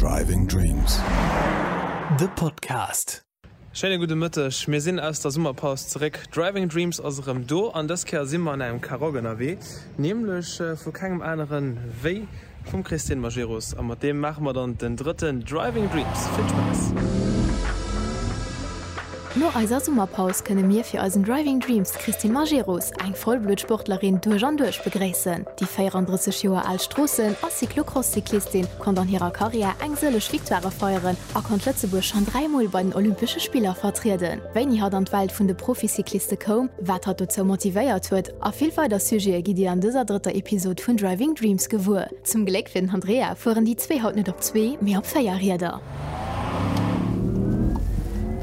Driving Dreams. De Podcast. Schéine gudde Mëtteg, mir sinn aus der Summerpaus zeréck. Driving Dreams ass erëm do an dës Kéier si mer an engem Karoq ënnerwee, nämlech vu kengem aneren wéi Vum Christine Majerus a mat deem maache mer dann den drëtten Driving Dreams. Vill Spaass! No eiser Summerpaus kënne mir fir eisen Driving Dreams d'Christine Majerus, eng Vollbluttsportlerin duerch an duerch, begréissen. Déi 34 Joer al Stroossen a Cyclocross-Cyclistin konnt an hirer Karriär eng sëlleg Victoirë feieren a konnt Lëtzebuerg schonn 3 Mol bei den Olympesche Spiller vertrieden. Wéini hatt an d'Welt vun de Proficycliste koum, wat hatt dozou motivéiert huet A vill weider Sujete gitt Dir an dëser drëtter Episod vun Driving Dreams gewuer. Zum Gléck fir den Andrea fueren déi zwee haut net op zwee, mee op 4 Rieder.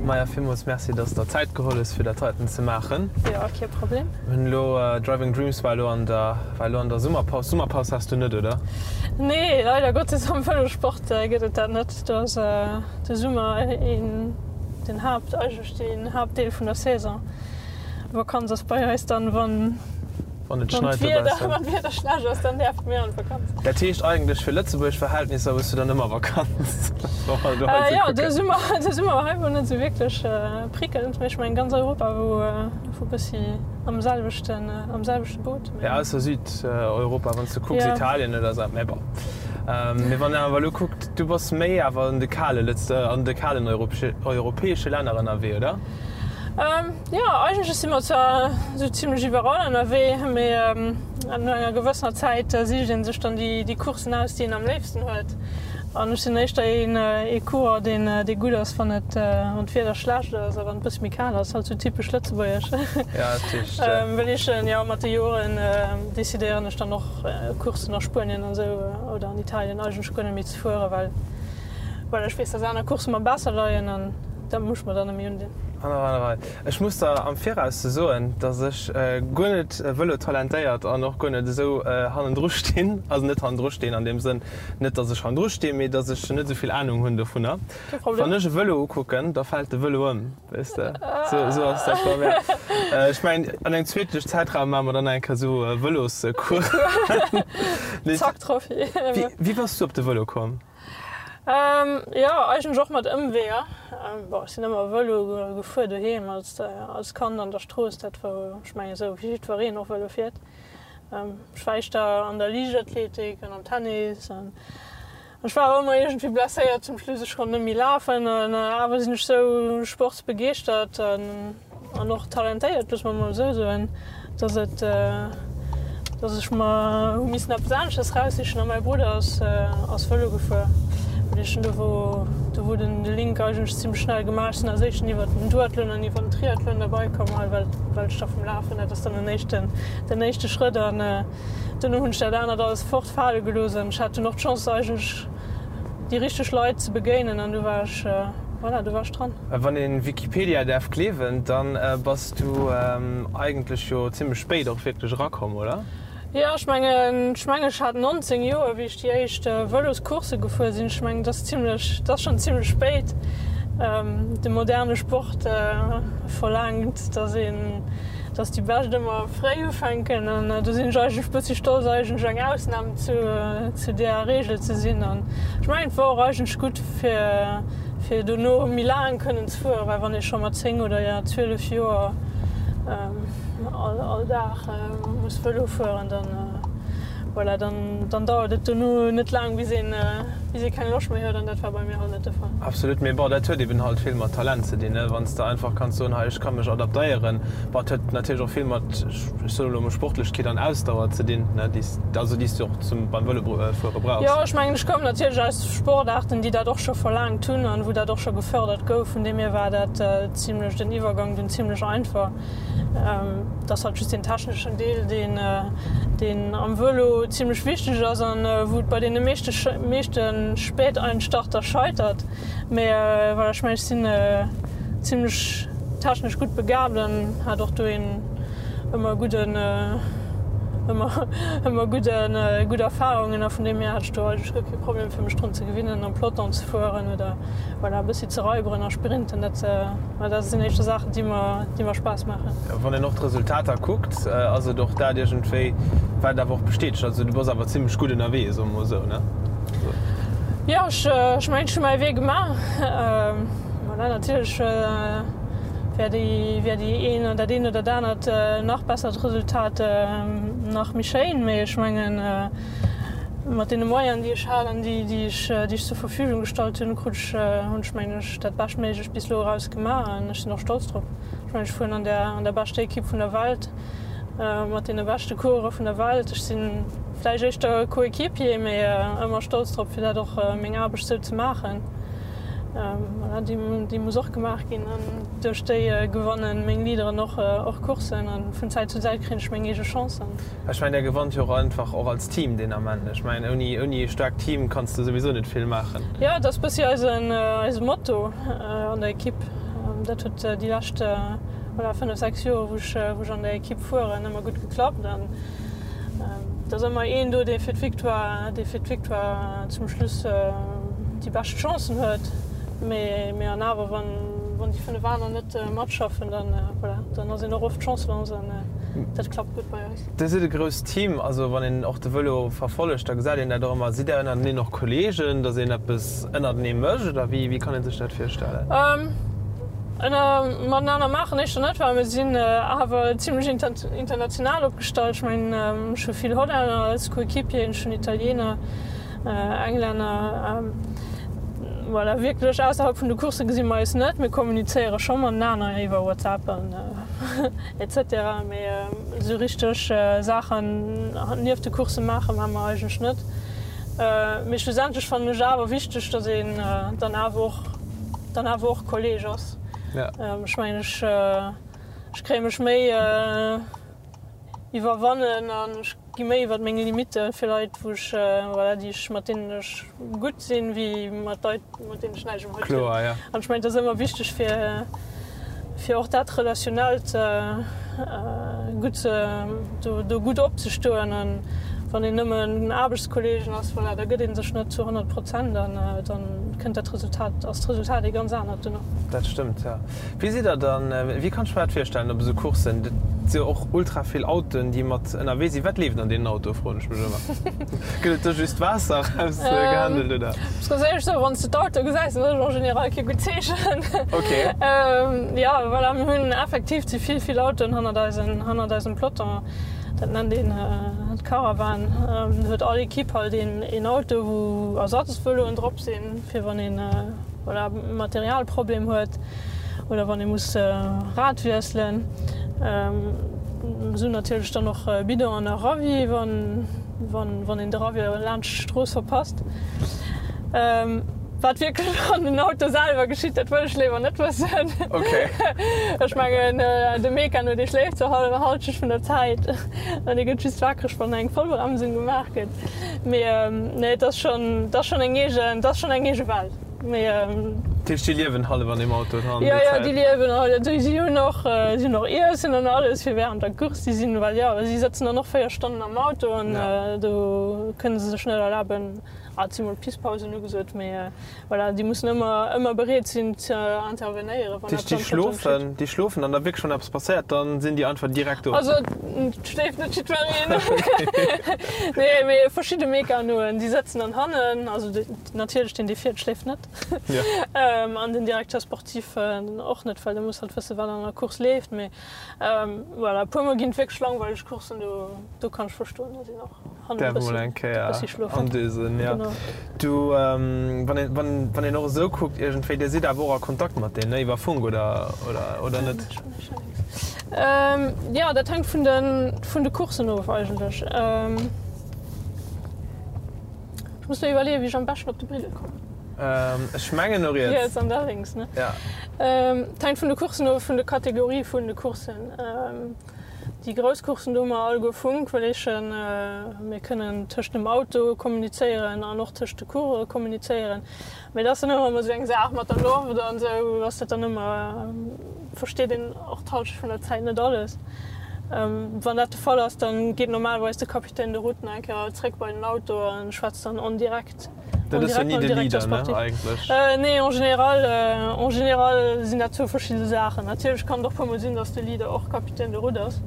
Maja, villmools Merci, dass de der Zäit geholl hues, fir dat heiten ze maachen. Jo, kee Problem. Mir hunn elo, Driving Dreams war elo an der, war elo an der Summerpaus. Summerpaus has du net, oder? Nee, leider Gottes, am Vëlossport gëtt et dat net. Do ass de Summer een, den Haapt, eigentlech den Haaptdeel vun der Saison. Vakanz ass bei eis dann wann Wann et schneit dobaussen. Wann d'Wieder schlecht ass, dann däerfe mir an d'Vakanz. Dat heescht eigentlech fir Lëtzebuerg Verhältnisser hues du dann ëmmer Vakanz? Jo, de Summer, de Summer hei wor net esou wierklech prickelnd, mee ech mengen ganz Europa wor e bëssi am selwechten, am selwechte Boot. Jo, ausser Südeuropa, wann s du kucks, Italien oder esou, mä bon. Mee wann een awer elo kuckt, du bass méi awer an de kale Lëtz, an de kalen europäesche Länner ënnerwee, oder? Jo, eigentlech si mer zwar esou zimlech iwwerall ënnerwee, mee no enger gewëssener Zäit sicht ee sech dann déi Courssen aus, déi een am léifsten huet. An ech sinn éischter ee Coureur, deen dee gutt ass, wann et, wann d'Wieder schlecht ass a wann et e bësse méi kal ass, halt sou typesch lëtzebuergesch. Well ech, jo, mat de Joren decidéieren ech dann och Courssen a Spuenien an esou oder an Italien eigentlech guer net méi ze fueren, well well ech weess, dass aner Coursse mer besser leien an dat muss ech mer dann net méi undinn. An ech muss der am Viraus soen, dass ech guer net vëlotalentéiert an och guer net esou hannendru stinn, also net hannendru stinn an deem Sënn, net dass ech hannendru stinn, mee dass ech net esou vill Anung hunn dovunner. Kee Problem. Wann ech e Vëlo ukucken, da fält de Vëlo ëm, weess de. Esou, esou ass dat bei mir. Ech mengen, an engem zweetlechen Zäitraum maache mer dann eng Kéier esou Vëloscoursen. Zack, Trophy. Wéi bass du op de Vëlo komm? Jo, eigentlech och mat Ëmweeër. Bon, ech sinn ëmmer Vëlo gefuer doheem als als Kand an der Strooss. Dat wor, ech mengen esou wéi jiddwereen och Vëlo fiert. Ech war éischter an der Liichtathletik an am Tennis an ech war awer ëmmer iergendwéi blesséiert zum Schluss. Ech konnt net méi lafen an awer sinn ech sou sportsbegeeschtert an. An och talentéiert, loosse mer mol esou soen, dass et, dass ech mer hu missen eppes aneschters raussichen. A mäi Brudder ass, ass Vëlo gefuer. An ech hunn do wou, do wor den de Link eigentlech zimmlech schnell gemaach. Ech sinn als éischten iwwert den Duathlon an iwwert den Triathlon derbei komm hei, well, well ech da vum Lafen, dat ass dann den éischten, den éischte Schrëtt. An duerno hunn ech dat anert alles fortfale gelooss an ech hat dunn och d'Chance eigentlech déi richteg Leit ze begéinen an du war ech, voilà, du war ech dran. Wann een Wikipedia däerf gleewen, dann bass du eigentlech jo zimmlech spéit och wierklech erakomm, oder? Jo, ech mengen, ech mengen ech hat 19 Joer wéi ech déi éischt Vëloscoursse gefuer sinn. Ech mengen, dat ass zimmlech, dat ass schonn zimmlech spéit. De moderne Sport verlaangt, dass een, dass déi Bescht ëmmer fréi ufänken an do sinn ech eigentlech bëssi stolz eigentlech eng Ausnam zu zu där Reegel ze sinn an ech mengen et wor och eigentlech gutt fir fir dono méi laang kënnen ze fueren, well wann ee scho mat 10 oder ja 12 Joer all all Dag muss Vëlo fueren, dann voilà, dann dann dauert et dono net laang bis een bis ee keng Loscht méi huet an dat war bei mir halt net de Fall. Absolut, mee bon, dat huet eben halt vill mat Talent ze dinn, ne, wann s de einfach kanns soen, hei ech ka mech adaptéieren. Bon, et huet natierlech och vill mat, ech soen elo emol, Sportlechkeet an Ausdauer ze dinn, ne, déi s, also déi s du och zum, beim Vëlofuere brauchs. Jo, ech mengen, ech koum natierlech aus Sportaarten, déi dat och scho verlaangt hunn an wou dat och scho gefördert gouf. Vun deem hier war dat zimlech, den Iwwergang dunn zimlech einfach. Et ass halt just deen techneschen Deel, deen, deen am Vëlo zimlech wichteg ass an wou et bei deene meeschte, meeschte Späteinstarter scheitert. Mee voilà, ech mengen, ech sinn zimlech technesch gutt begabt an hat och dohin ëmmer gudden, ëmmer, ëmmer gudden, gutt Erfahrungen a vun deem hier hat ech do eigentlech guer kee Problem fir mech drun ze gewinnen am Peloton ze fueren oder voilà e bëssi ze raiberen a sprinten. Dat, dat sinn éischter Saachen déi mer, déi mer Spaass maachen. Wann een och d'Resultater kuckt, ass et och dat iergendwéi wat awer och bestätegt. Also du bass awer zimlech gutt ënnerwee, soe mer mol esou, ne? Jo, ech mengen, ech hu mäi Wee gemaach. Voilà, natierlech wär déi, wär déi een, dat eent oder dat anert nach bessert Resultat nach méi schéin, mee ech mengen, mat deene Moyenen, déi ech hat an déi, déi ech, déi ech zur Verfügung gestallt hunn, krut ech, hunn ech, mengen ech, dat Beschtméiglecht bis elo eraus gemaach an ech sinn och stolz drop. Ech mengen, ech fueren an der, an der beschter Ekipp vun der Welt. Mat deene beschte Coureure vun der Welt. Ech si vläicht éischter Coéquipier, mee ëmmer stolz drop, fir dat och meng Aarbecht sou ze maachen. Voilà, déi muss och gemaach ginn an duerch déi gewanne meng Leaderen och och Courssen an vun Zäit zu Zäit kréien ech meng eege Chancen. Ech mengen, Där gewannt jo och einfach och als Team deen Ament. Ech mengen, ouni ouni ee staarkt Team kanns de souwisou net vill maachen. Jo, et ass bëssi eisen eise Motto an der Ekipp. Dat huet déi lescht. Voilà, 5, 6 Joer wou ech wou ech an der Ekipp fueren, ëmmer gutt geklappt an et ass ëmmer een do, dee fir d'Victoire, dee fir d'Victoire zum Schluss déi bescht Chancen huet. Mee mee an awer wann wann déi 5 aner net matschaffen, dann voilà, dann ass een och oft chancelos an dat klappt gutt bei eis. Dir sidd e grousst Team, also wann een och de Vëlo verfollegt, da gesäit een dat och ëmmer. Sidd Där ënnerteneen och Kolleegen, datt een eppes ënnertenee mécht oder wéi wéi kann ee sech dat virstellen? Ënner matenaner maachen éischter net, well mir sinn awer zimlech international opgestallt. Ech mengen, ech hu vill Hollänner als Coéquipieren, ech hunn Italiener, Englänner. Voilà, wierklech ausserhalb vun de Coursse gesi mer eis net. Mir kommunizéiere scho matenaner iwwer WhatsApp an etc. Mee esou richteg Saachen nieft de Coursse maache maache mer eigentlech net. Mee schlussendlech fannen ech awer wichteg, datt een dann awer och dann awer och Kolleg ass. Ja. Ech mengen, ech, ech kréie mech méi iwwerwannen an ech gi méi iwwer meng Limitte fir Leit, wou ech, voilà, déi ech, mat deenen ech gutt sinn, wéi mat Leit, mat deenen ech näischt um Hutt hunn. Kloer, ja. An ech mengen, et ass ëmmer wichteg fir, fir och dat Relationellt gutt ze, do, do gutt opzestoen. An wann een nëmmen Aarbechtskollegen ass, voilà, da gëtt ee sech net zu 100 Prozent an dann kënnt dat Resultat, ass d'Resultat ee ganz anert duerno. Dat stëmmt, jo. Wéi sidd Der dann, wéi kann ech mer dat virstellen op esou Courssen? Dat si jo och ultra vill Autoen, déi mat ënnerwee sinn. Wat leeft an deenen Autoe, froen ech mech ëmmer. Gëtt et do just Waasser erausgehandelt, oder? Ech muss ganz éierlech soen, wann s de d'Autoe gesäis, dann ass et en général kee gutt Zeechen. Ok. Jo, voilà, mir hunn effektiv ze vill, vill Autoen hannert eisen, hannert eisem Peloton. Dat nennt een d'Caravane. Do huet all Ekipp halt een, een Auto, wou Ersatzvëloen drop sinn, fir wann een, voilà, Materialproblem huet oder wann ee muss Rad wiesselen. Esou natierlech dann och Bidon an a Ravi, wann, wann, wann een de Ravi laanscht d'Strooss verpasst. Wat wierklech an den Auto selwer geschitt, dat wëll ech léiwer net wëssen. Okay. Ech mengen, de Mekano, dee schléift zur Hallschent vun der Zäit an dee gëtt just wakereg, wann eng Vollbremsung gemaach gëtt. Mee nee, et ass schonn, et ass schonn eng eegen, et ass schonn eng eege Welt. Mee. Dat heescht, déi liewen hallef an deem Auto dran déi Zäit? Jo, jo, déi liewen hallef. Si hunn och, si hunn och Iessen an alles fir wärend der Course. Si sinn, well jo, si sëtzen dann och 4 Stonnen am Auto an do kënne se sech net erlaben, Ah, et si mol Pisspausen ugesot, mee voilà, déi mussen ëmmer, ëmmer bereet sinn ze intervenéieren, wann eppes am Peloton geschitt. Déi schlofen an da wierklech wann eppes passéiert, dann sinn déi einfach direkt do? Also et schléift net jiddwereen. Nee, mee verschidde Mekanoen, déi sëtzen dann hannen, also natierlech deen dee fiert schléift net an den Directeur sportif och net, well dee muss halt wëssen, wat an der Course leeft. Mee voilà, e puer mol ginn et wierklech langweileg Courssen, do, do kann ech verstoen, datt een och. Därf mol eng Kéier andösen, ja. Du, wann een, wann, wann een och esou kuckt iergendwéi, Dir sidd awer och a Kontakt mat deenen, ne, iwwer Funk oder, oder, oder net? Jo, dat hänkt vun de, vun de Courssen of eigentlech. Ech muss mer iwwerleeën, wéi ech am beschten op de Briddel kommen. Ech mengen no riets. Riets an da lénks, ne? Ja. Et hänkt vun de Courssen of, vun de Kategorie vun de Courssen. Déi grouss Courssen, do hu mer alleguer Funk, well eechen mir kënnen tëscht dem Auto kommunizéieren an och tëscht de Coureuren kommunizéieren. Mee dat ass dann ëmmer esou eng Saach mat der Loft an esou ass dat dann ëmmer, versteet een och d'Hallschent vun der Zäit net alles. Wann dat de Fall ass, dann geet normalerweis de Capitaine de route nach eng Kéier zréck bei den Auto a schwätzt dann en direct. Dat ass jo ni de Leader, ne, eigentlech? Nee, en général, en général sinn dat zwou verschidde Saachen. Natierlech kann et och puermol sinn, datt de Leader och Capitaine de route ass,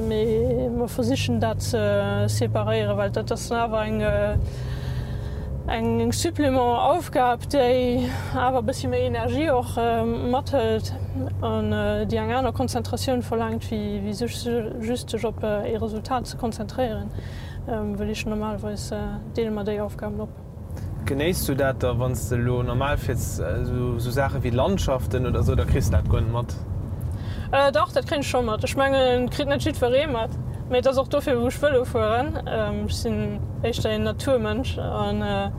mee mer versichen dat ze separéieren, well dat ass dann awer eng. Eng Supplément Aufgab, déi awer e bëssi méi Energie och mathëlt an déi eng aner Konzentratioun verlaangt, wéi sech just sech op ee Resultat ze konzentréieren, wëll ech normalerweis deele mer déi Aufgaben op. Genéiss du dat da wann s de elo normal fiers, esou Saache wéi Landschaften oder esou, da kriss de dat guer net mat? Dach, dat kréien ech scho mat. Ech mengen, et kritt net jiddweree mat, mee et ass och dofir, wou ech Vëlo fueren. Ech sinn éischter een Naturmënsch a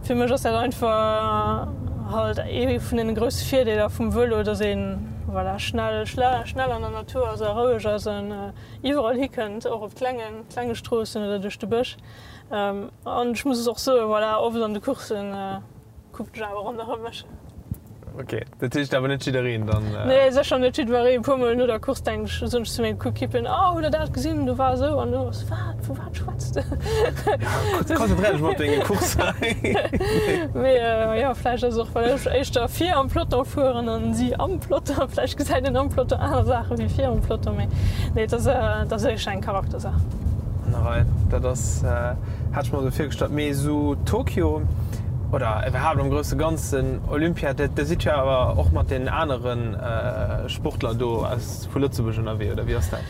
fir mech ass dat einfach halt ee vun deene grousse Virdeeler vum Vëlo, dass ee voilà schnell, schnell an der Natur ass a roueg ass an iwwerall hikënnt, och op klenge, klenge Stroossen oder duerch de Bësch. An ech muss och soen, voilà, oft an de Courssen kucken ech awer ronderëm mech. Ok, dat heescht awer net jiddereen dann? Nee, sécher net jiddwereen. E puer mol no der Course denken ech, soen ech zu menge Coéquipieren, Oh, hutt der dat gesinn? Do war esou an do ass. Wat? Vu wat schwätz de? Ja, konzentréier dech mol op deng Course hei. Mee jo, vläicht ass et och, well ech éischter vir am Peloton fueren an si am Peloton. Vläicht gesäit een am Peloton aner Saache wéi vir am Peloton. Mee nee, et ass, et ass éischter eng Charaktersaach. An der Rei, dat ass, hat ech mer esou virgestallt. Mee esou Tokio oder iwwerhaapt am grousse Ganzen Olympia, der sidd jo awer och mat den anere Sportler do aus vu Lëtzebuerg ënnerwee, oder wéi ass dat?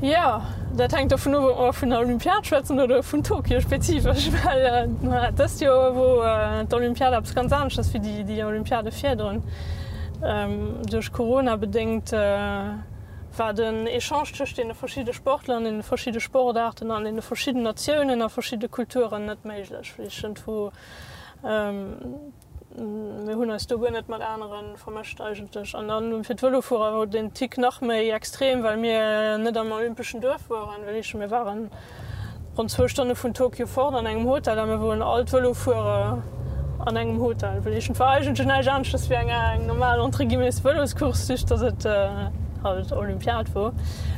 Jo, dat hänkt dovun of, ob mer vun der Olympiad schwätzen oder vun Tokio spezifesch, well dëst Joer wor d'Olympiad eppes ganz aneschters wéi déi Olympiade virdrun. Duerch Corona bedéngt war den Echange tëscht deene verschidde Sportler an deene verschidde Sportaarten an deene verschidden Natiounen a verschidde Kulturen net méiglech. Wéi ech iergendwou, mir hunn eis do guer net mat anere vermëscht eigentlech. An dann fir d'Vëlofuerer wor den Tick nach méi extrem, well mir net am olympeschen Duerf woren, wéi ech, mir waren Ronn zwou Stonne vun Tokio fort an engem Hotel a mir woren all d'Vëlofuerer an engem Hotel. Well et war eigentlech näischt aneschters wéi eng normal, entre guillemets, Vëloscourse, just dass et halt Olympiad wor.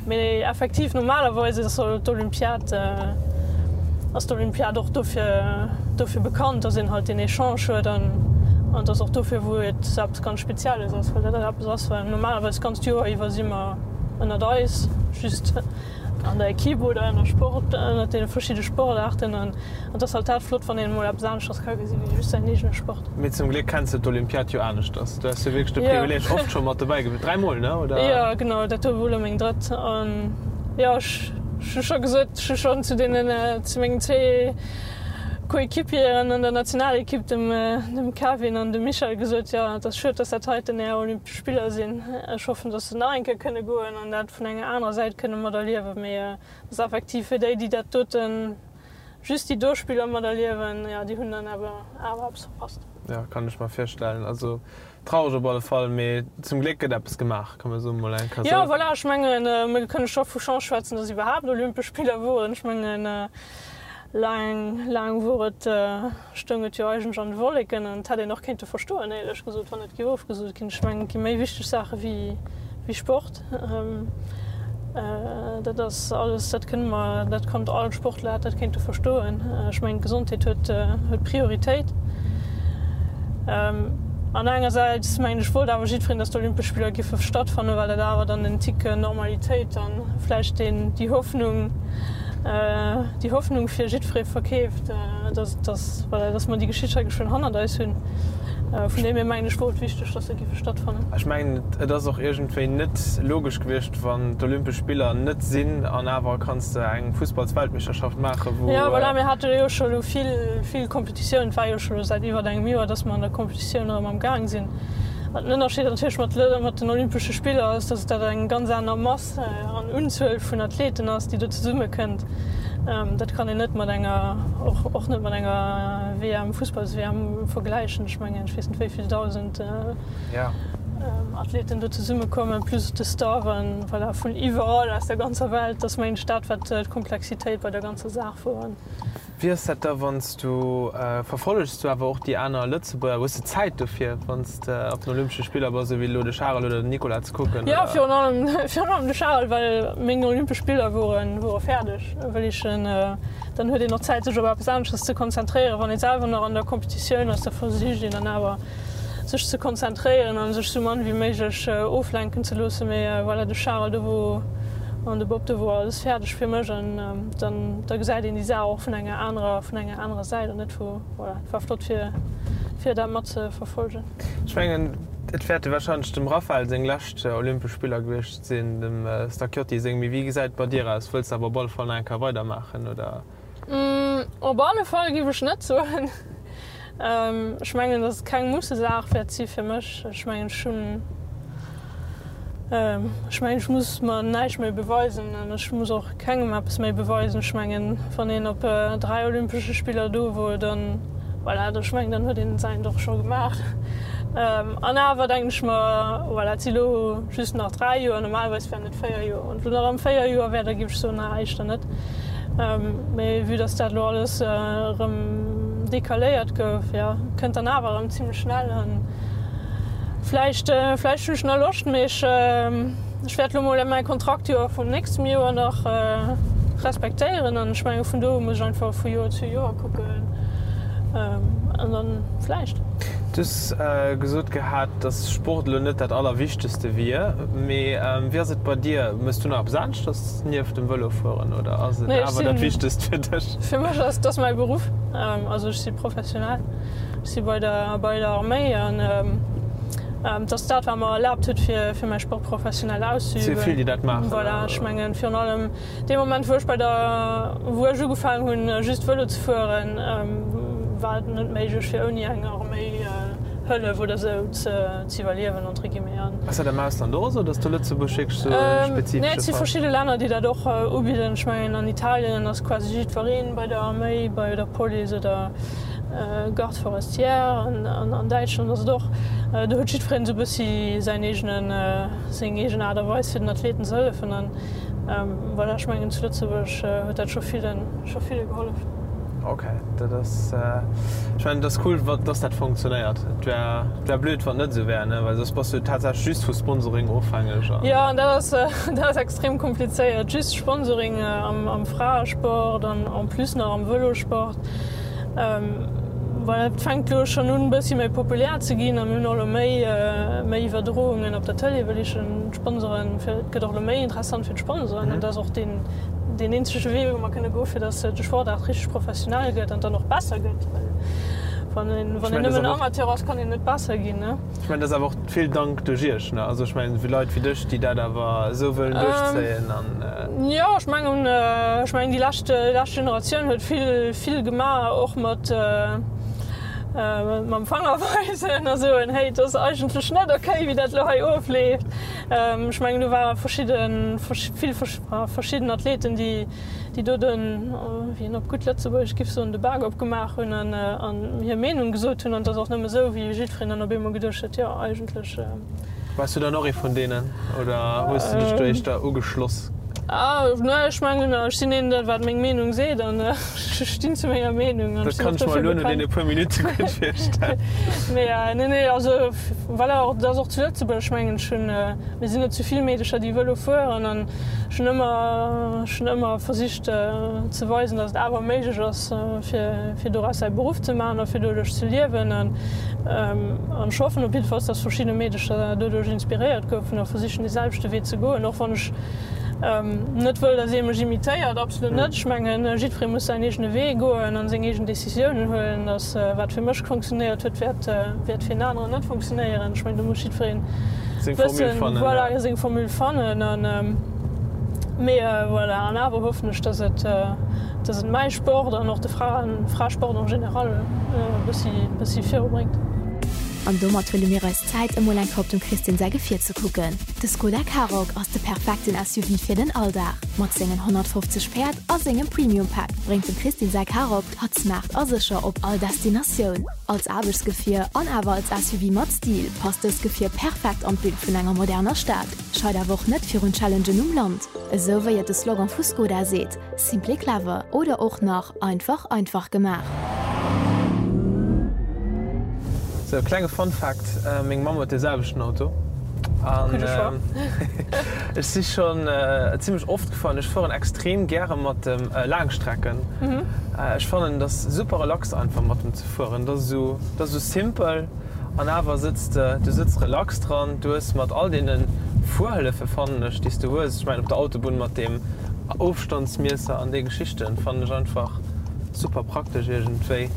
Mee effektiv normalerweis ass d'Olympiad ass d'Olympiad och dofir dofir bekannt, dass een halt deen Echange huet an an dass och dofir wou et eppes ganz Spezielles ass, well dat eppes ass, well normalerweis d'ganzt Joer iwwer si mer ënnert eis just. an der Equipe oder ënner Sport, ënner deene verschidde Sportaarten an et ass halt dat flott, wann een emol eppes aneschters ka gesi wéi just säin eegene Sport. Mee zum Gléck kenns de d'Olympiad jo aneschters. Du has jo wierklech de Privileeg oft scho mat dobäi gewiescht, dräimol, ne, oder? Jo, genau, dat do wor elo meng drëtt an jo, ech hu scho gesot, ech hu schonn zu deenen, zu mengen zwee Coéquipieren an der Nationalequipe, dem dem Kevin an dem Michel gesot, jo, et ass schued, dass dat heiten är Olympesch Spiller sinn. Ech hoffen, dass se nach eng Kéier kënne goen an dat vun enger anerer Säit kënne materliewen, mee et ass effektiv fir déi, déi dat doten, just déi do Spiller materliewen, jo, déi hunn dann awer awer eppes verpasst. Jo, kann ech mer virstellen. Also traureg op alle Fall, mee zum Gléck gëtt eppes gemaach, kann mer soen, mol eng Kéier. Jo, voilà, ech mengen, mir kënne scho vu Chance schwätzen, dass iwwerhaapt Olympesch Spiller woren. Ech mengen, laang, laang wor et, stoung et jo eigentlech an de Wolleken an et hätt een och kéinte verstoen, éierlech gesot, wann et géif ofgesot ginn. Ech mengen, et gi méi wichteg Saache wéi Sport. Dat ass alles, dat kënne mer, dat konnt all Sportler hätt dat kéinte verstoen. Ech mengen, d'Gesondheet huet Prioritéit. An engersäits mengen ech, wollt awer jiddwereen, datt d'Olympesch Spiller giffe stattfannen, well dat awer dann en Tick Normalitéit an vläicht deen, déi Hoffnung, déi Hoffnung fir jiddweree verkeeft, dass, dass, voilà, dass mer déi Geschicht hei geschwënn hannert eis hunn. Vun deem hier mengen ech, wor et wichteg, dass se giffe stattfannen. Ech mengen, et ass och iergendwéi net logesch gewiescht, wann d'Olympesch Spiller net sinn an awer kanns de eng Fussballsweltmeeschterschaft maachen, wou. Jo, voilà, mir hate jo scho elo vill, vill Kompetitioun. Et war jo scho elo säit iwwert engem Joer, dass mer an der Kompetitioun erëm am Gaang sinn. An den Ënnerscheed natierlech mat, mat den Olympesche Spiller ass, dass dat eng ganz aner Mass an Unzuel vun Athleten ass, déi do zesumme kënnt, dat kann een net mat enger, och net mat enger WM, Fussballs-WM vergläichen. Ech mengen, ech weess net wéi vill 1.000 Athleten do zesumme kommen, plus de Staff an voilà, vun iwwerall aus der ganzer Welt. Dat ass mengen ech dat, wat d'Komplexitéit bei der ganzer Saach wor. Wéi ass dat da wann s du, verfollegs du awer och déi aner Lëtzebuerger? Hues de Zäit dofir wann s de op den Olympesche Spiller bass, esou wéi elo de Charel oder den Nicolas ze kucken? Jo, virun allem, virun allem de Charel, well meng Olympesch Spiller woren, wore fäerdeg, wëll ech en, dann huet een och Zäit sech op eppes anesches ze konzentréieren. Wann ee selwer nach an der Kompetitioun ass, da versicht een dann awer sech ze konzentréieren an sech sou mann wéi méiglech oflenken ze loossen. Mee voilà, de Charel do wou. An de Bob, do wor alles fäerdeg fir mech an dann da gesäit een déi Saach och vun enger anerer vun enger anerer Säit an net vu voilà. Et war flott fir fir dat mat ze verfolgen. Ech mengen et wäerte wahrscheinlech dem Raphael seng lescht Olympesch Spiller gewiescht sinn, dem Stacchiotti seng. Mee wéi gesäit et bei dir aus? Wëlls de awer op alle Fall nach eng Kéier weidermaachen oder? Op alle Fall giff ech net soen. Ech mengen, datt et keng Mussesaach wäert si fir mech. Ech mengen, ech hunn, ech mengen, ech muss mer näischt méi beweisen an ech muss och kengem eppes méi beweisen. Ech mengen, wann een op 3 Olympesche Spiller do wor, dann, voilà, ech mengen, dann huet een säint och scho gemaach. An awer denken ech mer, voilà, et si lo just nach 3 Joer, normalerweis wären et 4 Joer. Wann et lo nach ëm 4 Joer wär, da géif ech soen, na, éischter net. Mee vue dass dat elo alles erëm decaléiert gouf, jo, kënnt dann awer erëm zimlech schnell. An vläicht, vläicht hunn ech nach Loscht, mee ech, ech wäert elo mol mäi Kontraktjoer vum nächstem Joer nach respektéieren. An ech menge vun do u muss ech einfach vu Joer zu Joer kucken an dann vläicht. Du hues gesot gehat, dass Sport elo net dat Allerwichtegste wier, mee wéi ass et bei dir? Méchs du nach eppes aneschters nieft dem Vëlofueren oder ass et awer dat Wichtegst fir dech? Fir mech ass dat mäi Beruff. Also ech si professionell, ech si bei der bei der Arméi an et ass dat wat mer erlaabt huet fir fir mäi Sport professionell auszeüben. Et si vill déi dat maachen. Voilà, ech mengen virun allem Dee Moment wou ech bei der, wou ech ugefaangen hunn just Vëlo ze fueren, war et net méiglech fir ouni eng Arméihëllef oder sou ze iwwerliewen entre guillemets. An. Ass dat am Ausland och esou, datt do Lëtzebuerg wierklech sou e spezifesche Nee, et si verschidde Länner déi dat och ubidden. Ech mengen an Italien ass quasi jiddwereen bei der Arméi, bei der Police oder Garde forestière an an Däitschland ass et och, do huet jiddwereen esou e bëssi säin eegenen, seng eegen Aart a Weis fir den Athleten ze hëllefen an Voilà, ech mengen zu Lëtzebuerg huet dat scho villen, scho ville gehollef. Ok, dat ass, ech mengen et ass cool, dass dat funktionéiert. Et wär, et wär blöd, wann et net esou wär, ne, well soss bass du tatsächlech just vu Sponsoring ofhängeg an. Jo, an dat ass, dat ass extrem komplizéiert, just Sponsoring am, am Fraesport an en plus nach am Vëlosport. Voilà, et fänkt elo schonn un e bëssi méi populär ze ginn a mir hunn och elo méi, méi Iwwerdroungen op der Tëlee, wëll ech en. D'Sponsoren, fir, et gëtt och elo méi interessant fir d'Sponsoren an dat ass och deen, deen eenzege Wee, wou mer kënne goen, fir datt de Sportaart richteg professionell gëtt an dann och besser gëtt, well wann een, wann een nëmmen Amateur ass, kann een net besser ginn, ne. Ech mengen, dat ass awer och vill Dank duerch Iech, ne? Also ech mengen, fir Leit wéi dech, déi dat awer esou wëllen duerchzéien an. Jo, ech mengen, ech mengen déi lescht, déi lescht Generatioun huet vill, vill gemaach, och mat, mam Fanger weisen a soen, hey, et ass eigentlech net okay, wéi dat elo hei ofleeft. Ech mengen, do ware verschidde, vill verschidden Athleten, déi, déi do den, wéi een op gutt Lëtzebuergesch giff soen, de Bak opgemaach hunn an an hir Meenung gesot hunn. An et ass och nëmme esou, wéi jiddwereen dann op eemol geduecht huet, jo, eigentlech. Waars du dann och ee vun deenen oder hues du dech do éischter ugeschloss? Nee, ech mengen, ech sinn een, dat wat meng Meenung seet an ech stinn zu menger Meenung an ech sinn och dofir bekannt. Dat kann ech mer elo no deene puer Minutte gutt virstellen. Mee nee, nee, also voilà, och dat ass och zu Lëtzebuerg, ech mengen, ech hunn, mir sinn net zu vill Meedecher, déi Vëlo fueren an ech hunn ëmmer, ech hunn ëmmer versicht ze weisen, datt et awer méiglech ass, fir, fir doraus säi Beruff ze maachen a fir doduerch ze liewen. An ech hoffen op jiddefalls, datt verschidde Meedecher doduerch inspiréiert goufen a versichen, dee selwechte Wee ze goen, och wann ech net wëll, datt ee mech imitéiert, absolut net. Ech mengen, jiddweree muss säin eegene Wee goen a seng eegen Decisiounen huelen. Datt wat fir mech funktionéiert huet, wäert, wäert fir en aneren net funktionéieren. Ech mengen, do muss jiddweree wëssen, voilà, seng Formule fannen. An, mee voilà, an awer hoffen ech, datt et, datt et mäi Sport an och de Fraen, Fraesport en général e bëssi, bëssi virubréngt. An domat huele mir eis Zäit emol eng Kéier op dem Christine säi Gefier ze kucken. De Skoda Karoq ass de perfekten SUV fir den Alldag. Mat sengen 150 Päerd a sengem Premium Pack bréngt dem Christine säi Karoq hatt smart a sécher op all Destinatioun. Als Aarbechtsgefier an awer als SUV mat Stil passt dëst Gefier perfekt an d'Bild vun enger moderner Stad, scheit awer och net virun Challengen um Land. Esou wéi et de Slogan vu Skoda seet, Simply clever oder och nach einfach einfach gemaach. Sou, klenge Fun Fact, Meng Mamm huet dee selwechten Auto an ech si schonn zimmlech oft gefuer an ech fueren extrem gäre mat dem Laangstrecken. Ech fannen et ass super relax einfach mat dem ze fueren. Et ass esou, et ass esou simpel. An awer sëtz de, du sëtz relax dran, du hues mat all deene Fuerhëllefe fannen ech, déi s du hues, ech mengen op der Autobunn mat deem Ofstandsmiesser an déi Geschichten, fannen ech einfach super praktesch iergendwéi.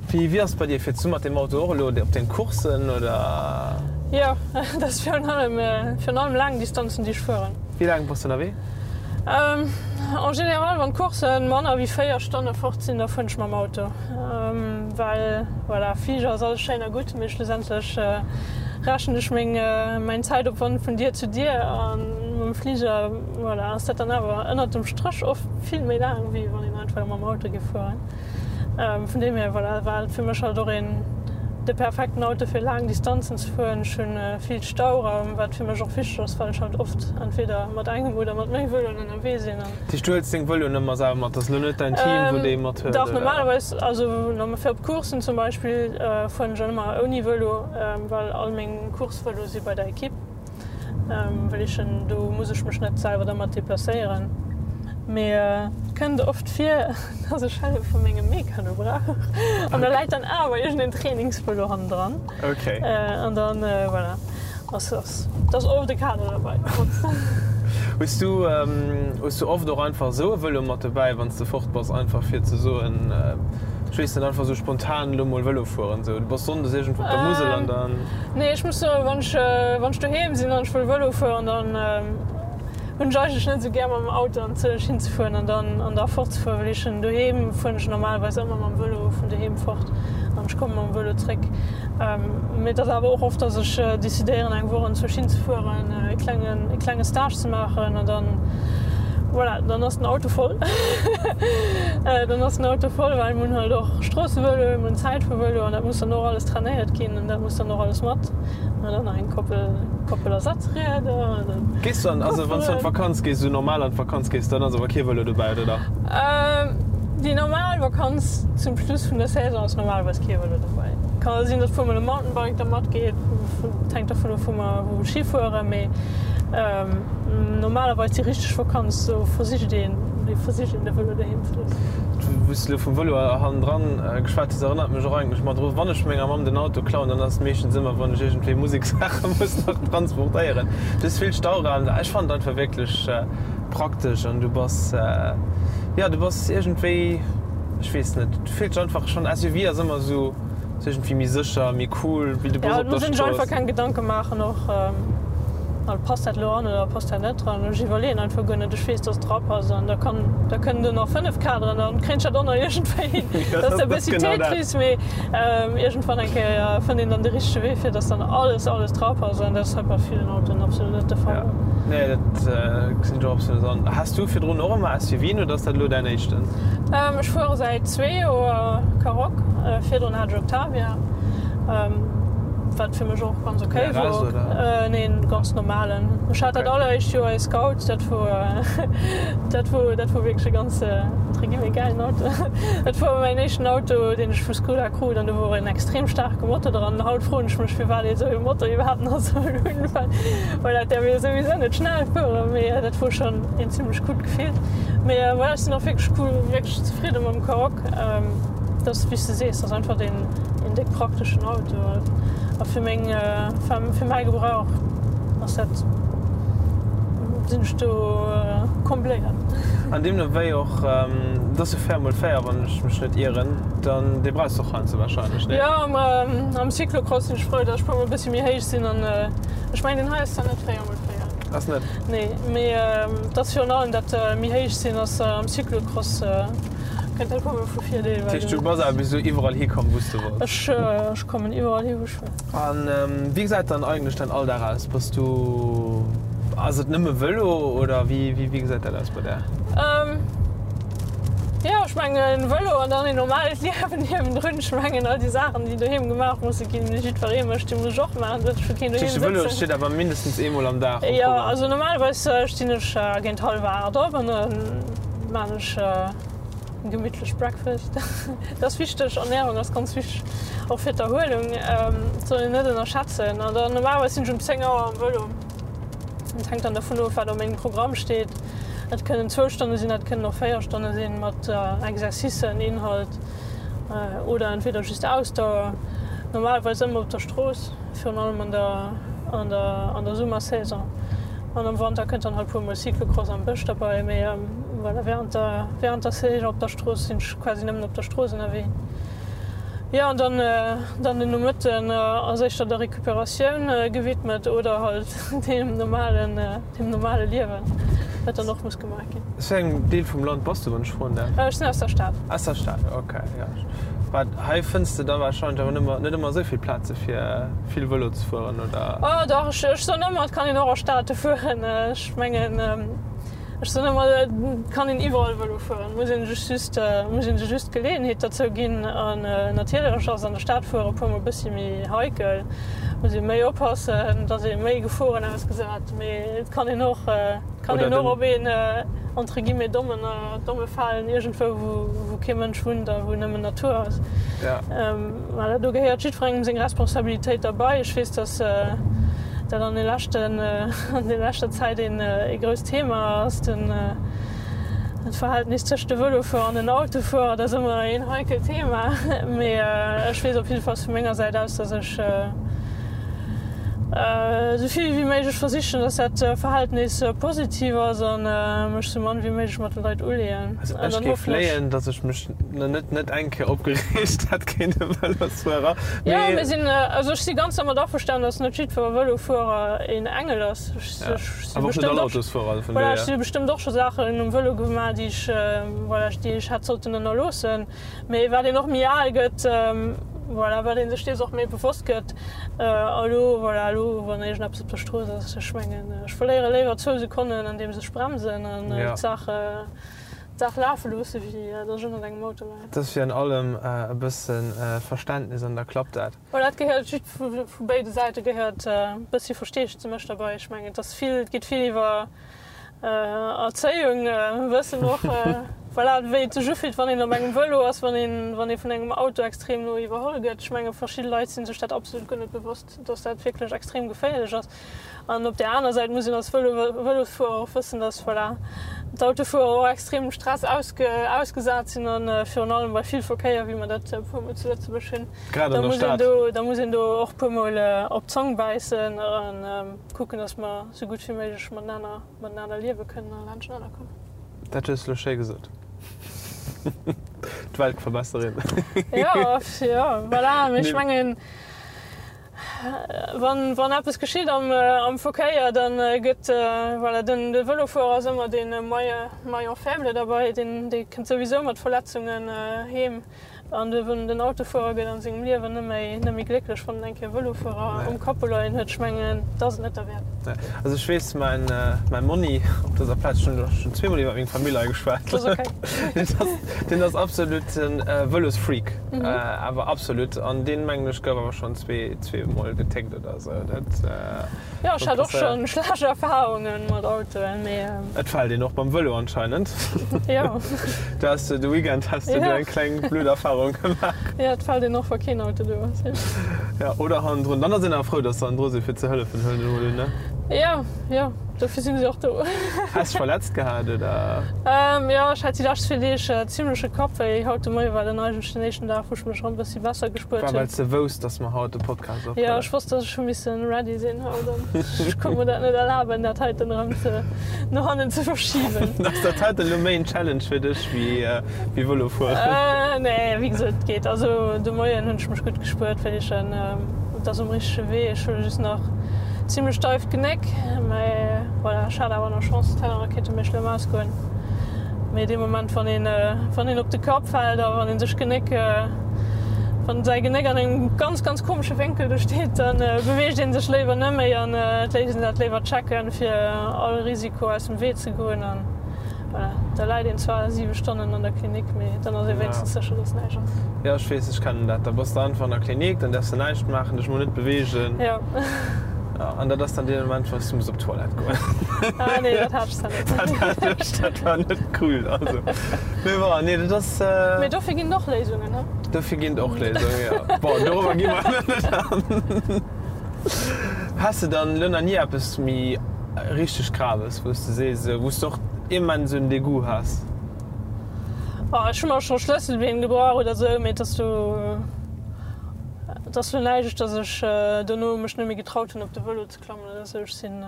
Wéi, wéi ass et bei dir? Fiers du mat deem Auto och elo op deng Courssen oder? Jo, dat ass virun allem, virun allem laang Distanzen, déi ech fueren. Wéi laang bass du ënnerwee? En général, wann d'Courssen manner wéi 4 Stonne fort sinn, da fueren ech mam Auto. Well voilà, Fliger ass alles schéin a gutt, mee schlussendlech rechnen ech meng mäin Zäitopwand vun Dier zu Dier a mam Fliger voilà, ass dat dann awer ënnert dem Stréch oft vill méi laang, wéi wann een einfach mam Auto géif fueren. Vun deem hier voilà, war et fir mech halt och een de perfekten Auto fir laang Distanzen ze fueren. Ech hunn vill Stauraum, wat fir mech och wichteg ass, well ech halt oft entweder mat engem oder mat méi Vëloen ënnerwee sinn. Dat heescht, du huels deng Vëloen ëmmer selwer mat, dat ass elo net däin Team, wou déi mat huet, Dach, normalerweis, also fir op Courssen zum Beispill fueren ech ëmmer ouni Vëlo, well all meng Coursevëloe si bei der Ekipp. Well ech en, do muss ech mech net selwer dermat deplacéieren. Mee et kënnt oft vir, dass ech Hëllef vu mengem Mekano brauch an da läit dann awer iergendeen Trainingsvëlo hannendran. An dann, voilà, ass ass et ass oft e Kader derbei. Hues du, hues du oft och einfach esou e Vëlo mat dobäi, wann s de fort bass, einfach fir ze soen, ech weess net, einfach esou spontan elo mol Vëlo fueren, esou du bass sonndes iergendwou op der Musel an dann. Nee, ech muss soen, wann ech, wann ech doheem sinn an ech wëll Vëlo fueren, dann hunn ech eigentlech net esou gär mam Auto an Zürich hinzefueren an dann an da fortzefueren, well ech hunn doheem fueren ech normalerweis ëmmer mam Vëlo vun doheem fort an ech komme mam Vëlo zréck. Mee et ass awer och oft, dass ech decidéieren eng Woch an Zürich hinzefueren, e klengen, e klenge Stage ze maachen an dann, voilà, dann ass den Auto voll. Dann ass den Auto voll, well mir hunn halt och Stroossevëloen, mir hunn Zäitfuervëlo an dat muss dann och alles trainéiert ginn. An dat muss dann och alles mat. An dann nach eng Koppel, Koppel Ersatzrieder. Gees du an, also wann s du an d'Vakanz gees, esou normal an d'Vakanz gees, dann ass awer kee Vëlo dobäi, oder dach? Déi normal Vakanz zum Schluss vun der Saison ass normalerweis kee Vëlo dobäi. Kann sinn, datt puer mol e Mountainbike da matgeet, et hänkt dervun of wou mer wou Ski fueren, mee normalerweis déi richteg Vakanz, do versicht een, versicht een de Vëlo doheem ze loossen. Wou s de elo vum Vëlo hannendran geschwat hues, erënnert mech och eigentlech mat dru, wann ech menger Mamm den Auto klauen, dann ass et meeschtens ëmmer, wann ech iergendwéi Musekssaache muss nach transportéieren. Du hues vill Stauraum. Ech fannen et einfach wierklech praktesch an du bass, jo, du bass iergendwéi, ech weess net, du fills dech einfach schonn, SUV ass ëmmer esou. Ass iergendwéi méi sécher, méi cool wéi de Bus op der Strooss. Ja, et muss een sech einfach keng Gedanke maachen och, passt dat elo an oder passt dat net dran. Ech iwwerleeën einfach guer net, ech weess, dass et drapasst an da kann, da kënnen do nach 5 Kaderen, dann kréien ech dat och nach iergendwéi hin. Dat ass e bëssi Tetris, mee iergendwann eng Kéier fënnt een dann de richtege Wee, fir dass dann alles, alles drapasst an dat ass hei bei villen Autoen absolut net de Fall. Nee, dat gesinn ech och absolut an. Has du virdrun och ëmmer SUVen oder ass dat elo däin éischten? Ech fuere säit zwee Joer Karoq, virdrun hat ech Octavia, wat fir mech och ganz ok wor. Nee, en ganz normalen. Ech hat dat alleréischt Joer ee Scout, dat wor dat wor dat wor wierklech e ganz entre guillemets gäilen Auto. Dat wor mäin éischten Auto, deen ech vu Skoda krut an do wor en extrem staarke Motor dran. Haut froen ech mech, firwat ee sou ee Motor iwwerhaapt nach soll hunn, well well dat däerf ee souwisou net schnell fueren, mee dat wor schonn een zimmlech coolt Gefill. Mee voilà, ech sinn och wierklech cool, wierklech zefridde mam Karoq. Dat ass, wéi s de sees, dat ass einfach deen een déck prakteschen Auto. A fir meng, fir mäi Gebrauch ass dat, sinn ech do combléiert. An deemno wéi och, dat ass jo 4 mol 4, wann ech mech net ieren, dann dee brauchs de och heiansdo warscheinlech, nee? Jo, am Cyclocross sinn ech frou, datt ech puer mol e bëssi méi héich sinn an ech mengen deen hei ass zwar net 4 mol 4. Ass net? Nee, mee et ass virun allem dat méi héich sinn ass am Cyclocross kënnt dat puer mol vu Virdeel. Dat heescht du bass awer bis elo iwwerall hikomm wou s de wollts? Ech kommen iwwerall hi wou ech wëll. An wéi gesäit dann eigentlech däin Alldag aus? Bass du, ass et nëmme Vëlo oder wéi wéi gesäit dat aus bei där? Jo, ech mengen Vëlo an dann een normalt Liewen niewendrun. Ech mengen all déi Saachen, déi doheem gemaach musse ginn, déi jiddweree mécht, déi muss ech och maachen, dat ech fir keen doheem sëtzen. De Vëlo steet awer mindestens eemol am Dag um Programm. Jo, also normalerweis stinn ech géint hallwer 8 op an da maan ech e gemittlech Breakfast. Dat ass wichteg, Ernährung ass ganz wichteg, och fir d'Erhuelung, dat soll een net ënnerschätzen. An dann normalerweis sinn ech um 10 Auer am Vëlo. Et hänkt dann dervun of, wat op mengem Programm steet. Et kënnen zwou Stonne sinn, et kënnen och 4 Stonne sinn, mat Exercicen, Inhalt oder entweder just Ausdauer. Normalerweis ëmmer op der Strooss, virun allem an der. an der an der Summersaison. An am Wanter kënnt dann halt puer mol Cyclocross am Bësch derbei, mee voilà, während der während der Saison op der Strooss sinn ech quasi nëmmen op der Strooss ënnerwee. Jo an dann dann den Nomëtten ass éischter der Recuperatioun gewidmet oder halt deem normalen deem normale Liewen, wat dann och muss gemaach ginn. Aus wéi engem Deel vum Land bass du, wann ech froen däerf? Ech sinn aus der Stad. Aus der Stad, ok, jo. Wat, hei fënns de da warscheinlech awer nëmmer, net ëmmer esou vill Plaze fir vill Vëlo ze fueren, oder? Oh dach, ech, ech soen ëmmer, et kann een och a Stade fueren. Ech mengen, ech soen ëmmer, et kann een iwwerall Vëlo fueren, muss een sech just, muss een sech just d'Geleeënheet derzou ginn. An natierlech ass an der Stad fuere e puermol e bëssi méi heikel, muss ee méi oppassen, et ass ee méi Geforen ausgesat, mee et kann een och, Kann een och op een entre guillemets dommen domme falen iergendwou wou wou kee Mënsch wunnt a wou nëmmen Natur ass. Voilà, do gehéiert jiddwerengem seng Responsabilitéit derbei. Ech weess, datt dat an de leschten an der leschter Zäit een ee grousst Thema ass, den d'Verhältnis tëscht de Vëlofuerer an den Autofuerer. Dat ass ëmmer een heikelt Thema, mee ech weess op jiddefalls vu menger Säit aus, datt ech, Esou vill wéi méiglech versichen, dass dat Verhältnis positiv ass an mech sou mann wéi méiglech mat de Leit uleeën. Also ech géif léien, dass ech mech net net eng Kéier opgereegt hätt géint e Vëlosfuerer. Jo, mir sinn, also ech si ganz dermat averstanen, dass net jiddwer Vëlofuerer een Engel ass. Ech si bestëmmt och, voilà, ech si bestëmmt och scho Saachen um Vëlo gemaach, déi ech, voilà, déi ech hätt sollten ënnerloossen. Mee wat een och méi al gëtt, voilà, wat ee sech dees och méi bewosst gëtt. A lo, voilà, elo wann iergendeppes op der Strooss ass, ech mengen, ech verléiere léiwer zwou Sekonnen andeems ech bremsen an d'Saach, d'Saach lafe loosse wéi datt ech ënnert engem Auto leien. Et ass wéi an allem, e bësse Verständnis an da klappt dat. Voilà, et gehéiert jidd, vu béide Säite gehéiert e bëssi Versteesdemech derbei. Ech mengen, et ass vill, et geet vill iwwer Erzéiung, wëssen och, voilà, wéi et sech ufillt, wann een op engem Vëlo ass, wann een, wann ee vun engem Auto extrem no iwwerholl gëtt. Ech menge verschidde Leit si sech dat absolut guer net bewosst, dass dat wierklech extrem geféierlech ass. An op där aner Säit muss een als Vëlo, Vëlosfuerer och wëssen, dass, voilà, d'Autofuerer och extremem Stress ausge, ausgesat sinn an virun allem bei vill Verkéier, wéi mer dat e puermol zu Lëtzebuerg hunn, Grad da an der muss een Stad. do, da muss een do och puermol op d'Zong bäissen an kucken, dass mer sou gutt wéi méiglech matenaner, matenaner liewe kënnen a laanschtenaner kommen. Dat hues de elo schéi gesot. D'Weltverbesserin. Jo, jo, voilà. Mee ech mengen, Wann, wann eppes geschitt am, am Verkéier, dann gëtt, voilà, den, de Vëlofuerer ass ëmmer dee Maillon faible derbei, deen, dee kënnt souwisou mat Verletzungen heem. An de, den Autofuerer gëtt an sengem Liewen net méi, net méi glécklech, wann en eng Kéier Vëlofuerer um Capot leien huet. Ech mengen, dat ass et net derwäert. Nee. Also ech weess, mäin, mäin Monni op dëser Plaz, ech hunn elo schonn zweemol iwwer meng Famill hei geschwat, Dat ass okay. deen ass, deen ass absoluten Vëlosfreak. Awer absolut. An deen, mengen ech, gouf awer schonn zweemol getéckt oder esou. Dat. Jo, ech hat och schonn schlecht Erfahrungen mat Autoen, mee. Et fält een och beim Vëlo anscheinend. Jo. Du has de Weekend has de do eng kleng blöd Erfahrung gemaach. Jo, et fält een och, wa keen Auto do ass, jo. Jo, oder hannendrun. Dann ass een awer frou, dass se hannendru sinn, fir ze hëllefen, huelen ech emol un, ne? Jo, jo. Dofir sinn se och do. Has dech verletzt gehat, oder? Jo, ech hat déi lescht zwee Deeg zimleche Kappwéi. Haut de Moie war dann eigentlech den éischten Dag, wou ech mech erëm e bëssi besser gespuert War hunn. well s de wousst, dass mer haut de Podcast Jo, ophuelen? ech wosst, dass ech hu missen ready sinn haut an ech konnt mer dat net erlaben, dat heiten erëm ze no hannen ze verschiben. Ass dat heiten elo méi en Challenge fir dech wéi wéi Vëlo fueren? Nee, wéi gesot, et geet. Also de Moien hunn ech mech gutt gespuert, well ech en. Et ass um richtege Wee. Ech hu just nach zimlech steift Genéck, mä voilà, ech hat awer nach Chance, et hätt awer kéinte méi schlëmm ausgoen. Mee dee Moment, wann een, wann een op de Kapp fält a wann een sech d'Genéck, wann säi Genéck an engem ganz, ganz komesche Wénkel do steet, da beweegt ee sech léiwer net méi an et léisst een dat léiwer checken, fir all Risiko aus dem Wee ze goen. Voilà, da läit een zwar 7 Stonnen an der Klinik, mee dann ass ee wéinstens sécher, dass näischt ass. Jo, ech weess, ech kennen dat. Da bass de einfach an der Klinik, dann däerfs de näischt maachen, dech mol net beweegen. Jo. Ja, an dat ass dann dee Moment, wou s du muss op d'Toilette goen. Ah nee, dat hat ech zwar net. Dat hat ech, dat war net cool, also. Mee bon, nee, dat ass. Mee dofir ginn et och Léisungen, he? Dofir ginn et och Léisungen, jo. Bon, dorobber gi mer elo net an. Has de dann elo nach ni eppes méi richteg Graves, wou s de sees, wou s de och immens en Degout has? Oh, ech hu mer scho Schlësselbeen gebrach oder sou, mee et ass do. Et ass lo näischt, dass ech dono mech net méi getraut hunn op de Vëlo ze klammen oder sou. Ech sinn,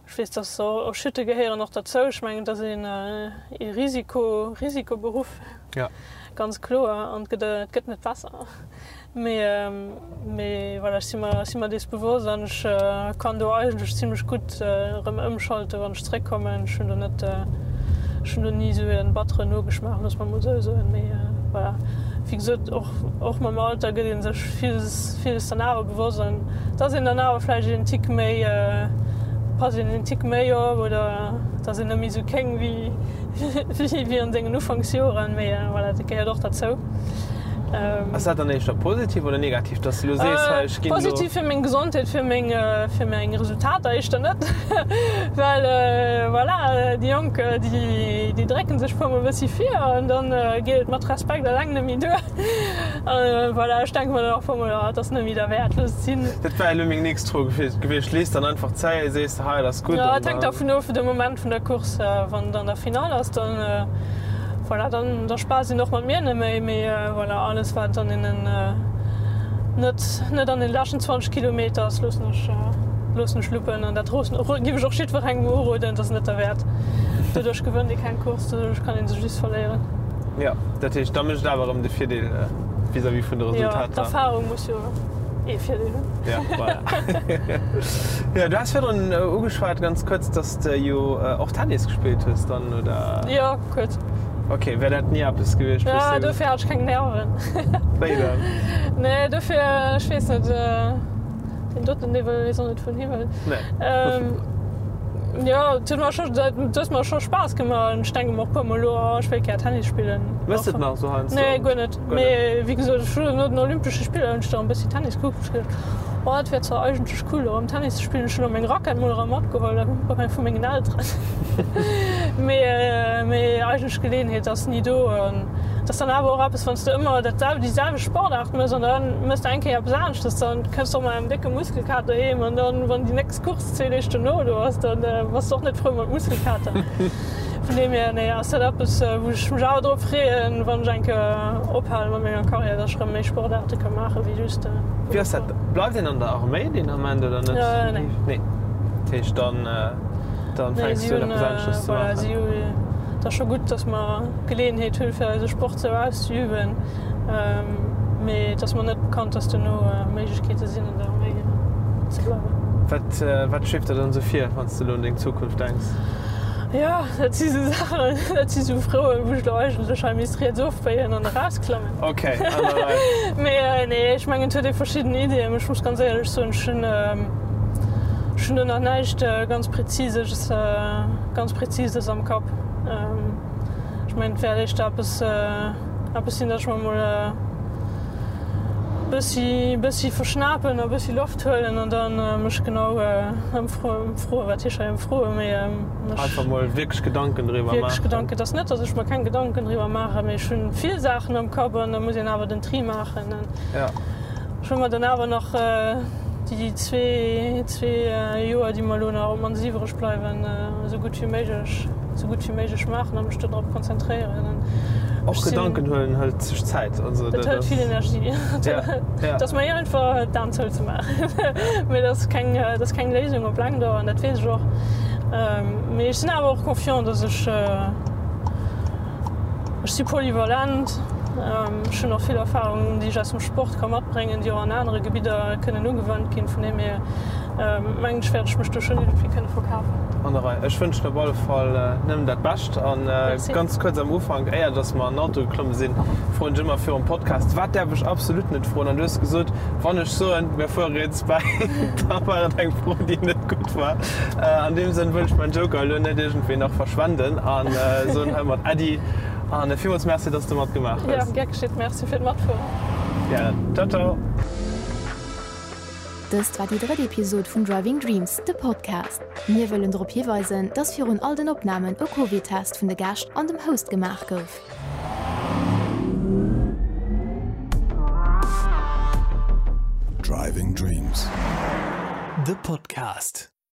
ech weess, dass och Chute gehéieren och derzou. Ech mengen, et ass een ee Risiko, Risikoberuff, ganz kloer an et gëtt, et gëtt net besser. Mee, mee voilà, ech si mer, ech si mer dees bewosst an ech kann do eigentlech zimlech gutt erëm ëmschalten, wann ech zeréckkommen. Ech hunn do net, ech hunn do ni esou e batteren Nogeschmaach, loosse mer emol esou soen. Mee voilà, wéi gesot, och, och mam Alter gëtt ee sech villes, villes dann awer bewosst an et ass een dann awer vläicht een Tick méi, passt een een Tick méi op oder et ass een net méi esou kéng wéi, wéi an sengen Ufanksjoren. Mee voilà, dat gehéiert och derzou. Ass dat dann éischter positiv oder negativ, dass de lo sees, hei ech ginn elo. Positiv fir meng Gesondheet, fir meng, fir meng Resultater éischter net, well voilà, déi Jonk, déi, déi drécken sech puer mol e bëssi vir an dann geet et mat Respekt eleng net méi duer. Voilà, ech denke mer dann och puer mol, oh, et ass net méi derwäert, looss et sinn. Dat war elo meng nächst Fro gewiescht. Lees dann einfach zäi, sees de, hei, et ass gutt an dann. Et hänkt dervun of, de Moment vun der Course, wann et an der Finall ass, dann. Voilà, dann da spaasst een och mat mir net méi, mee voilà, alles wat an deenen net net an den leschten 20 Kilometer ass, loossen ech loossen ech luppen an dat roossen giff ech och jiddwerengem uroden, et ass net derwäert. Doduerch gewënnt ee keng Course, doduerch kann ee sech just verléieren. Jo, dat heescht da mécht et awer erëm de Virdeel vis-à-vis vun de Resultater. Jo, d'Erfahrung muss jo ee Virdeel hunn. Jo, voilà. Jo, du has virdrun ugeschwat ganz kuerz, dass de jo och Tennis gespillt hues dann, oder? Jo. Kuerz. Ok, wär dat ni eppes gewiescht? Ja, dofir hat ech keng Nerven. Wéi dann? Nee, dofir, ech weess net, deen doten, dee wëll, weess och net wou en hi wëll. Nee. Jo, et huet mer scho, et huet mer scho Spaass gemaach an ech denke mer och puer mol elo, oh ech wéilt gär Tennis spillen. Méchs de et nach esou heiansdo? Nee, guer net. Mee wéi gesot, ech hunn no den Olympesche Spiller hunn ech da e bëssi Tennis gekuckt, hu ech geduecht, oh et wär zwar eigentlech cool erëm Tennis ze spillen. Ech hunn och meng Rackett mol erëm matgeholl vu mengen Elteren. Mee mee eigentlech d'Geleeënheet ass ni do. An et ass dann awer och eppes, wann s de ëmmer dat sel déi selwecht Sportaart mëss an da mëss de eng Kéier eppes aneschtes, dann kënns de och mat engem décke Muskelkater heem an dann, wann déi nächst Course zwee Deeg dono do ass, dann bass de och net frou mat Muskelkater. Vun deem hier, nee, ass dat eppes, wou ech mech awer drop freeën, wann ech eng Kéier ophale mat menger Karriär, dass ech erëm méi Sportaarte ka maachen, wéi just. Wéi ass dat, bleift een an der Arméi deen Ament oder net? Nee. Nee, dat heescht dann. Dann fänks du un eppes anesches ze maachen. Et ass scho gutt, datt mer d'Geleeënheet hunn, fir eise Sport sou auszeüben, mee et ass mer net bekannt, datt dono Méiglechkeete sinn, an der Arméi ze bleiwen. Wat, wat schweeft der dann esou vir, wann s de elo un deng Zukunft denks? Jo, dat si sou Saachen, dat si sou Froen, wou ech elo eigentlech hei misst riets ofbéien an erausklammen. Ok, an der Rei. Mee nee, ech mengen, et huet ee verschidden Iddien. Ech muss ganz éierlech soen, ech hunn, Ech hunn do nach näischt ganz Präzises, ganz Präzises am Kapp. Ech mengen, et wäert éischter eppes, eppes sinn, datt ech mer emol e bëssi, bëssi verschnapen a bëssi Loft huelen an da mech genau ëmfroen, wat heescht hei ëmfroen, mee mech. Einfach mol wierklech Gedanken driwwer maachen. Wierklech Gedanken. Et ass net, datt ech mer keng Gedanken driwwer maachen, mee ech hunn vill Saachen am Kapp an da muss een awer den Tri maachen. Ja. Ech hu mer dann awer nach déi zwee Joer, déi mer elo nach op d'mannst iwwreg bleiwen, esou gutt wéi méiglech, esou gutt wéi méiglech maachen a mech do drop konzentréieren. Och Gedanken huelen hëlt sech Zäit. Also dat hëlt vill Energie. Et ass méi einfach d'Aen zou ze maachen, mee dat ass keng, dat ass keng Léisung op laang Dauer an dat weess ech och. Mee ech sinn awer och confiant, datt ech, Ech si polyvalent, ech hunn och vill Erfahrungen, déi ech aus dem Sport ka matbréngen, déi och an anere Gebidder kënnen ugewannt ginn. Vun deem hier mengen ech, wäert ech mech do schonn iergendwéi kënne verkafen. An der Rei. Ech wënschen op alle Fall nëmmen dat Bescht. A ganz kuerz am Ufank, éier dass mer an den Auto geklomme sinn, froen ech ëmmer virum Podcast, Wat däerf ech absolut net froen? An du hues gesot, Wann ech soen, mir fuere riets bäi, da war et eng Fro, déi net gutt war. An deem Sënn wëll ech mäin Joker elo net iergendwéi nach verschwenden an soen heimat Äddi an villmools Merci, dass de matgemaach hues. Jo, gär geschitt. Merci fir d'Matfueren. Gären. Ciao, ciao. Dëst war déi drëtt Episod vun Driving Dreams, de Podcast. Mir wëllen drop hiweisen, dass virun all den Opnamen e Covid-Test vun de Gäscht an dem Host gemaach gouf. Driving Dreams, de Podcast.